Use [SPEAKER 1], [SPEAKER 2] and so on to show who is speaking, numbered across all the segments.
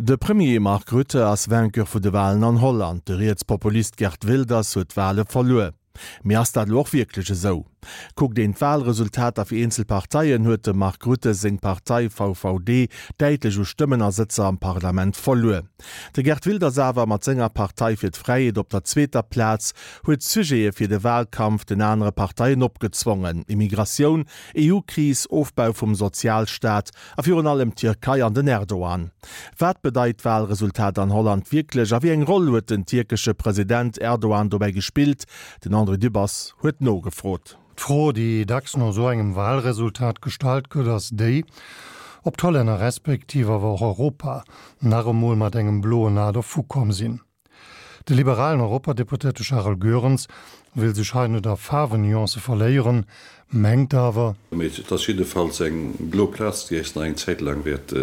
[SPEAKER 1] De Premier Mark Rutte ass Vainqueur vu de Walen an Holland. De Rietspopulist Geert Wilders huet d'Wale verluer. Mee ass dat elo och wierklech esou? Kuckt een d'Walresultater fir eenzel Parteien, huet dem Mark Rutte seng Partei VVD däitlech u Stëmmen a Sëtzer am Parlament verluer. De Geert Wilders awer, mat senger Partei fir d'Fräiheet op der zweeter Plaz, huet Sujete fir de Walkampf den anere Parteien opgezwongen, Immigratioun, EU-Kris, Ofbau vum Sozialstaat a virun allem d'Tierkei an den Erdogan. Wat bedeit d'Walresultat an Holland wierklech a wéi eng Roll huet den tierkesche President Erdogan dobäi gespillt? Den André Dübbers huet nogefrot.
[SPEAKER 2] D'Fro, déi dacks no esou engem Walresultat gestallt gëtt, ass déi, ob d'Hollänner respektiv awer och Europa nach emol mat engem bloen A dervukomm sinn. De liberalen Europadeputéierte Charel Goerens wëll sech hei net a Faarwennuancë verléieren, mengt awer,
[SPEAKER 3] Mee et ass jiddefalls eng blo Plaz, déi äis nach eng Zäit laang wäert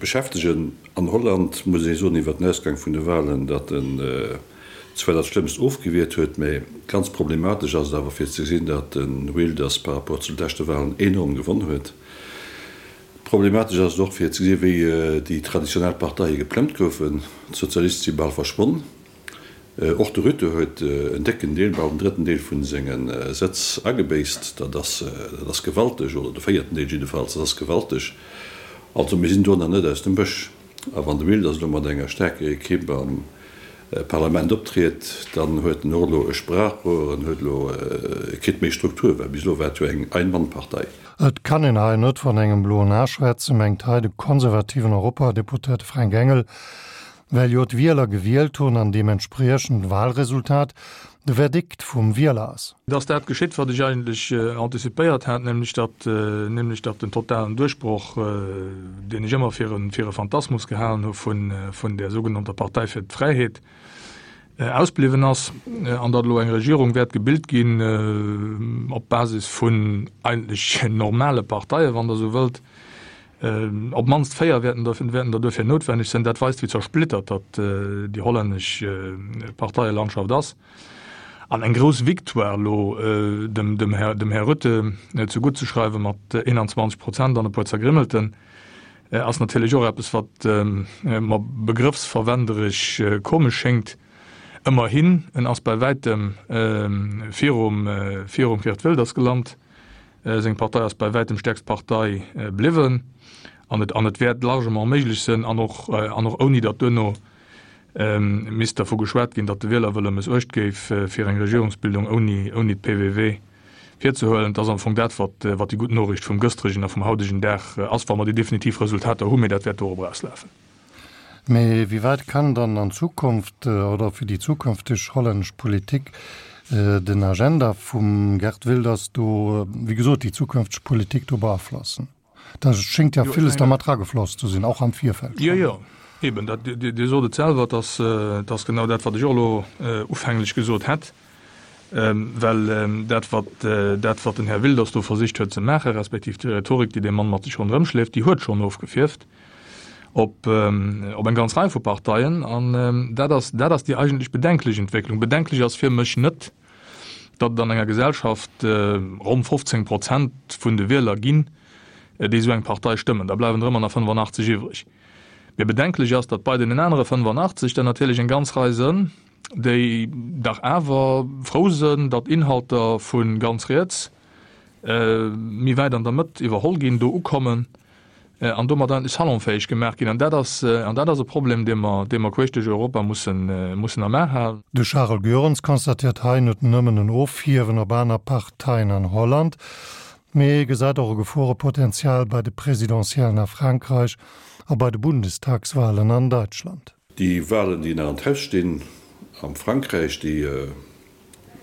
[SPEAKER 3] beschäftegen. An Holland muss ee soen iwwer den Ausgang vun de Wahlen, datt en zwar dat Schlëmmst ofgewiert huet, mä ganz problematesch ass et awer fir ze gesinn, datt de Wilders par rapport zu de leschte Wahlen enorm gewonn huet. Problematesch ass et och fir ze gesinn, wéi déi traditionell Parteie geplëmmt goufen. D'Sozialiste si bal verschwonn. Och de Rutte huet en décken Deel, bal den drëtten Deel vu senge Sëtz agebéisst. Dat ass, dat ass gewalteg, oder de véierten Deel jiddefalls, dat ass gewalteg. Also mir sinn do nach net aus dem Bësch. A wann de Wilders elo mat enger staarker Ekipp am Parlament optriet, dann huet en och elo e Sprachrohr, en huet elo, e kritt méi Struktur, well bis elo war et jo eng Ein-Mann-Partei.
[SPEAKER 2] Et kann een hei net vun engem bloen A schwätzen, mengt hei de konservativen Europadeputéierte Fränk Engel, well jo d'Wieler gewielt hunn an deementspriechend d'Wahlresultat de Verdikt vum Wieler ass.
[SPEAKER 4] Et ass dat geschitt, wat ech eigentlech anticipéiert hat, nämlech datt, nämlech datt den totalen Duerchbroch, deen ech ëmmer fir e, fir e Phantasmus gehalen hu vun, vun där sougenannter Partei fir d'Fräiheet, ausbliwwen ass an datt elo eng Regierung wäert gebilt ginn op Basis vun eigentlech normale Parteien, wann Der esou wëllt. Op d'mannst 4 wäerten der wäerten der duerfir noutwenneg sinn. Dat weist, wéi zersplittert datt déi hollännesch Parteielandschaft ass. An eng grouss Victoire elo dem dem Här dem Här Rutte zegutt ze schreiwe mat 21 Prozent an e puer Zergrimmelten, ass natierlech och eppes, wat mer begrëffsverwenderesch komesch schéngt. Ëmmerhin, en ass bei wäitem virum virum Geert Wilders gelant. Seng Partei ass bei wäitem stäerkst Partei bliwwen an et an et wäert largement méiglech sënn, an och an och ouni datt duerno misst dervu geschwat ginn, datt de Wielerwëlle mëssuecht géif, fir eng Regierungsbildung ouni ouni d'PVV virzehuelen. Et ass am Fong dat, wat wat déi gutt Noriicht vum gëstregen a vum haudegen Dag ass, wa mer déi definitiv Resultater hunn, mee dat wäert dorop erauslafen.
[SPEAKER 2] Mee wéi wäit kann dann an Zukunft oder fir déi zukünfteg hollännesch Politik den Agenda vum Geert Wilders do, wéi gesot, déi zukünfteg Politik do beaflossen? Da schéngt jo villes da mat eragefloss ze sinn, och am Virfeld
[SPEAKER 4] schonn. Jo, jo, eben, dat, Dir sot et selwer, et ass, et ass genau dat, wat ech och elo ufänglech gesot hätt. Well dat, wat, dat, wat den Här Wilders do versicht huet ze maachen, respektiv déi Rhetorik, déi dee Mann mat sech ronderëm schleeft, déi huet schonn ofgefierft op, op eng ganz Rei vu Parteien. An dat ass, dat ass déi eigentlech bedenklech Entwécklung. Bedenklech ass fir mech net, datt et an enger Gesellschaft ronn 15 Prozent vun de Wieler ginn, déi esou eng Partei stëmmen. Da bleiwen der ëmmer nach 85 iwwreg. Mee bedenklech ass, datt bei deenen anere 85 der natierlech eng ganz Rei sënn, déi dach awer frou sënn, datt Inhalter vu ganz riets méi wäit an der Mëtt iwwerholl ginn, do ukommen an domat eigentlech salonfäeg gemaach ginn. An dat ass, an dat ass e Problem, dee mer, dee mer queesch duerch Europa mussen, mussen am A halen.
[SPEAKER 2] De Charel Goerens constatéiert hei net nëmmen en Ofhiewen op aner Parteien an Holland, mee gesäit och e Geforepotenzial bei de Presidentiellen a Frankräich a bei de Bundestagswalen an Deutschland.
[SPEAKER 3] Déi Walen, déi nach an d'Haus stinn am Frankräich, déi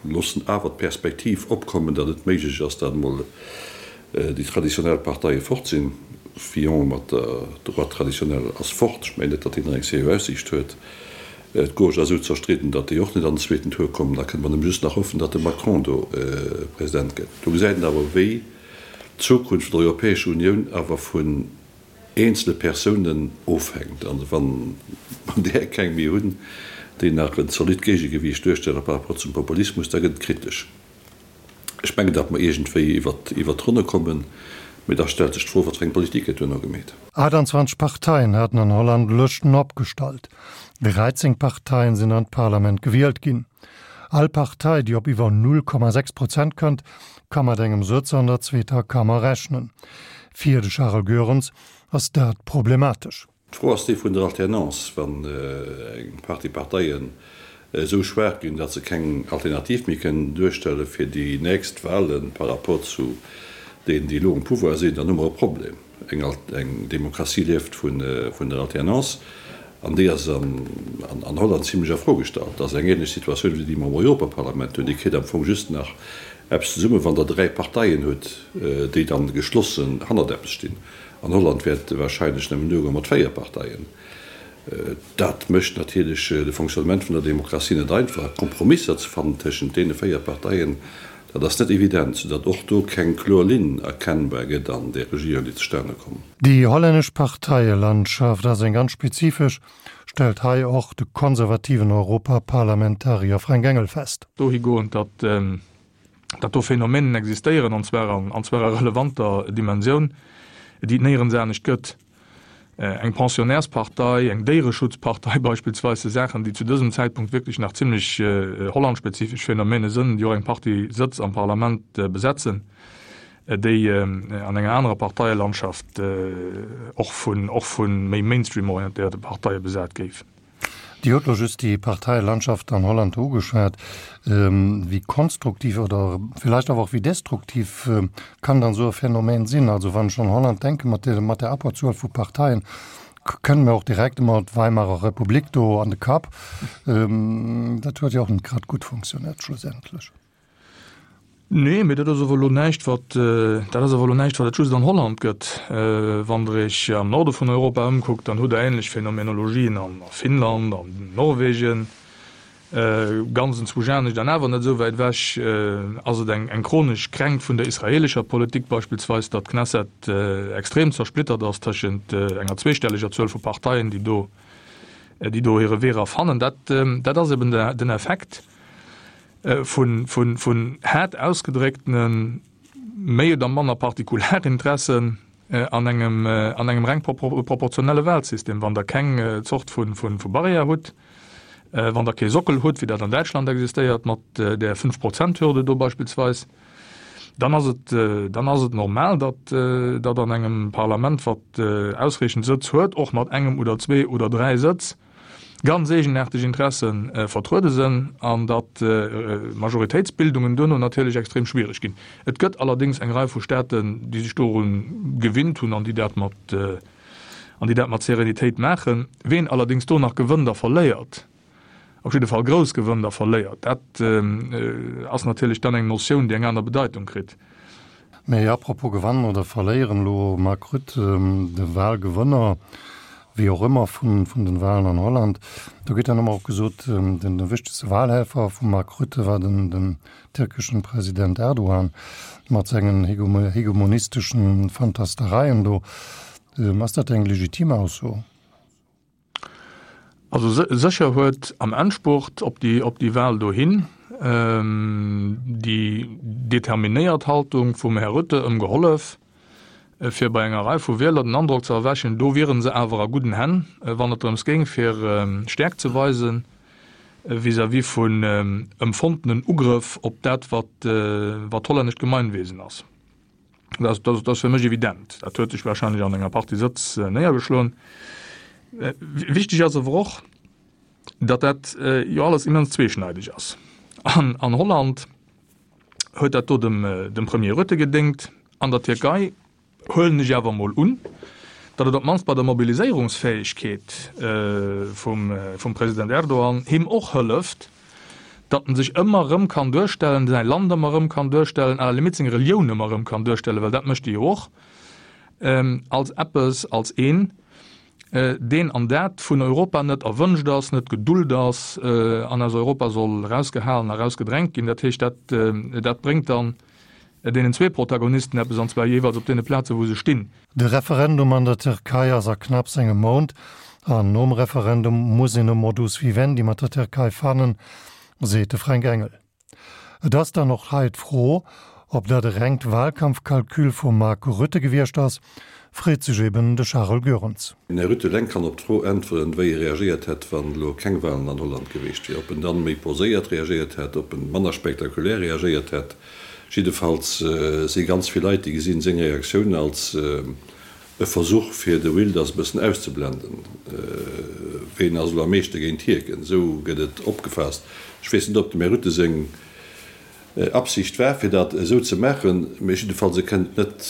[SPEAKER 3] loossen awer d'Perspektiv opkommen, datt et méiglech ass, datt emol déi traditionell Parteie fort sinn. Fillon mat der Droite traditionnelle ass fort. Ech mengen net, datt deen nach eng seriö Aussiicht huet. D'Gauche ass esou zerstridden, datt déi och net an den zweeten Tour kommen. Da kënne mer nëmme just nach hoffen, datt de Macron do President gëtt. Do gesäit een awer, wéi d'Zukunft vun der Europäescher Unioun awer vun eenzele Persounen ofhänkt. An wa mer där keng méi hunn, déi nach en zolidd Géigegewiicht duerstelle par rapport zum Populismus, da gëtt et kritesch. Ech mengen, datt mer iergendwéi iwwert d'Ronne kommen. Mee da stellt sech d'Fro, wat fir eng Politik gëtt duerno gemeet.
[SPEAKER 2] 28 Parteien haten an Holland Lëschten opgestallt. 13 Parteien sinn an d'Parlament gewielt ginn. All Partei, déi op iwwer 0,6 Prozent kënnt, ka mat engem Sëtz an der zweeter Kammer rechnen. Fir de Charles Goerens ass dat problematesch.
[SPEAKER 3] D'Fro ass déi vun der Alternance. Wann eng Partie Parteien esou schwaach ginn, datt se keng Alternativ méi kënnen duerstelle fir déi nächst Wale par rapport zu deenen, déi elo um Pouvoir sinn, dann hu mer e Problem. Eng Demokratie lieft vun der Alternance an déi ass an Holland zimlech a Fro gestallt. Dat ass eng ähnlech Situatioun wéi déi mer am Europaparlament hunn. Dir kritt am Fong just nach eppes zesummen, wann Der dräi Parteien hutt, déi dann geschlossen hannert eppes stinn. An Holland wäert wahrscheinlech nëmmen duergoen mat 4 Parteien. Dat mécht natierlech de Fonctionnement vun der Demokratie net einfach. Kompromisser ze fannen tëschent deene 4 Parteien, dat ass net evident, soudatt och do keng kloer Linn erkennbar gëtt an där Regierung, déi zustane komm.
[SPEAKER 2] Déi hollännesch Parteielandschaft ass eng ganz spezifesch, stellt hei och de konservativen Europaparlamentarier Frank Engel fest.
[SPEAKER 4] Dohigoend, datt datt do Phänomenen existéieren, an zwar an, an zwar a relevanter Dimensioun, déi et néierens anescht gëtt. Eng Pensionnairspartei, eng Déiereschutzpartei beispillsweis, si Saachen, déi zu dësem Zäitpunkt wierklech nach zimlech hollandspezifesch Phänomene sënn, déi och eng Partie Sëtz am Parlament besetzen, déi an enger anerer Parteielandschaft och vun, och vu méi mainstream-orientéierte Parteie besat géifen.
[SPEAKER 2] Dir hutt elo just déi Parteielandschaft an Holland do ugeschwat. Wéi konstruktiv oder villäicht awer och wéi destruktiv kann dann esou e Phänomen sinn? Also wann ech un Holland denken, mat der, mat der Abberzuel vu Parteien, kënnt mir och direkt ëmmer d'Weimarer Republik do an de Kapp. Dat huet jo och net grad gutt funktioniert schlussendlech.
[SPEAKER 4] Nee, mee dat ass awer elo näischt, wat, dat ass awer elo näischt, wat et just an Holland gëtt. Wann Der Iech am Norde vun Europa ëmkuckt, dann hutt Der ähnlech Phänomenologien a Finnland, an Norwegen, ganz enzwousch anescht an awer net esou wäit ewech ass et eng, eng chronesch Kränkt vun der israeelescher Politik beispillsweis, datt d'Knesset extrem zersplittert ass tëschent enger zweestelleger Zuel vu Parteien, déi do, déi do hire Wee era fannen. Dat, dat ass eben den Effekt. Vun haart ausgedrécktene méi oder manner Partikularinteressen an engem an engem reng proportionelle Wahlsystem. Wann Der keng Zort vu Barrière hutt, wann Der kee Sockel hutt, wéi dat an Däitschland existéiert mat där Fünf-Prozent-Hürde do beispillsweis, dann ass et dann ass et normal, datt datt an engem Parlament, wat ausreechend Sëtz huet, och mat engem oder zwee oder dräi Sëtz, ganz eegenaarteg Interesse vertruede sënn an datt Majoritéitsbildungen duerno natierlech extrem schwiereg ginn. Et gëtt allerdéngs eng Rei vu Staaten, déi sech doru gewinnt hunn an déi dat mat an déi dat mat Serenitéit maachen. Ween allerdéngs do nach gewënnt a verléiert, op jidde Fall grouss gewënnt a verléiert, dat ass natierlech dann eng Notioun, déi eng aner Bedeitung kritt.
[SPEAKER 2] Mee apropos gewannen oder verléieren, elo Mark Rutte, de Wahlgewënner, wéi och ëmmer, vun den Wahlen an Holland, do gëtt dann ëmmer och gesot, den wichtegste Wahlhelfer vum Mark Rutte war den den tierkeschen President Erdogan mat sengen hegemonisteschen Fantastereien do. Ass dat eng legitim Ausso?
[SPEAKER 4] Also sécher huet am Endspurt op déi op déi Wahl dohin déi determinéiert Haltung vum Här Rutte ëm gehollef, fir bei enger Rei vu Wieler den Androck ze erwächen, do wiere se awer a gudden Hänn, wann et drëms géing fir Stäerkt ze weisen vis-à-vis vun empfonntenen Ugrëff op dat wat wat d'hollännescht Gemeinwesen ass. Dat, dat, dat ass fir mech evident. Dat huet sech wahrscheinlech an enger Partie Sëtz äh, néiergeschloen. Äh, wichteg ass awer och, datt dat äh, jo alles immens zweeschneideg ass. An, an Holland huet dat do dem, äh, dem Premier Rutte gedéngt, an der Tierkei huelen ech awer mol un, datt et op d'mannst bei der Mobiliséierungsfäegkeet äh, vum, äh, vum President Erdogan him och hëlleft, datt en sech ëmmer erëm kann duerstellen, säi Land ëmmer erëm kann duerstellen, à la limite seng Relioun ëmmer erëm kann duerstellen, well dat mécht e jo och, als eppes, als een, deen an dat vun Europa net erwënscht ass, net gedult ass an aus Europa soll erausgehalen a erausgedrängt ginn. Dat heescht, dat, dat bréngt dann deenen zwee Protagonisten eppes, an zwar jeeweils op deene Plazen, wou se stinn.
[SPEAKER 2] De Referendum an der Tierkei ass a knapps engem Mount, an nom Referendum muss een e Modus vivendi mat der Tierkei fannen, seet de Fränk Engel. Et ass dann och hei d'Fro, Ob dat e rengt Wahlkampfkalkül vum Mark Rutte gewiescht ass, freet sech eben de Charel Goerens.
[SPEAKER 3] Den Här Rutte eleng kann op d'Fro äntweren, wéi e reagéiert hätt, wann elo keng Wahlen an Holland geweecht wier. Ob en dann méi poséiert reagéiert hätt, ob en manner spektakulär reagéiert hätt. Jiddefalls si ganz vill Leit, déi gesinn seng Reaktioun als e Versuch, fir de Wilders e bëssen auszeblenden. Ween ass elo am meeschte géint Hierken? Esou gëtt et opgefaasst. Ech weess net, ob dem Här Rutte seng Absicht war, fir dat esou ze maachen, mee jiddefalls e kënnt net,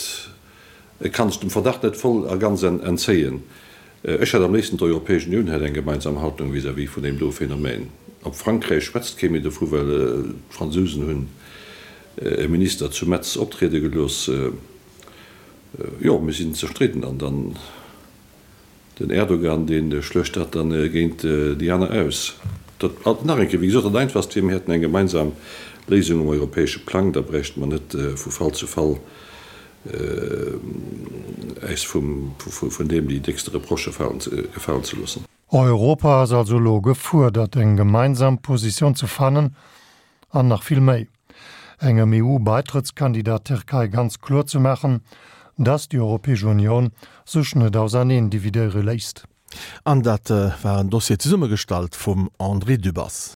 [SPEAKER 3] e kann sech dem Verdacht net voll a ganz entzéien. Ech hätt am léifsten, d'Europäesch Unioun hätt eng gemeinsam Haltung vis-à-vis vun deem do Phänomen. Op Frankräich schwätzt kee méi dovu, well d'Fransousen hunn e Minister zu Metz optriede gelooss. Jo, mir sinn zerstridden an dann den Erdogan, dee schluecht dat dann géint déi aner aus. Dat, nach eng Kéier, wéi gesot, dat Einfachst wier, mir hätten eng gemeinsam Léisung um europäesche Plang, da bräichte mer net vu Fall zu Fall äis vun deem déi déckste Reprochë gefalen ze loossen.
[SPEAKER 2] Europa ass also elo gefuerdert, eng gemeinsam Positioun ze fannen an nach vill méi, engem EU-Baitrëttskandidat Tierkei ganz kloer ze maachen, dass déi Europäesch Unioun sech net auserneen dividéiere léisst.
[SPEAKER 1] An dat war en Dossier zesummegestallt vum André Dübbers.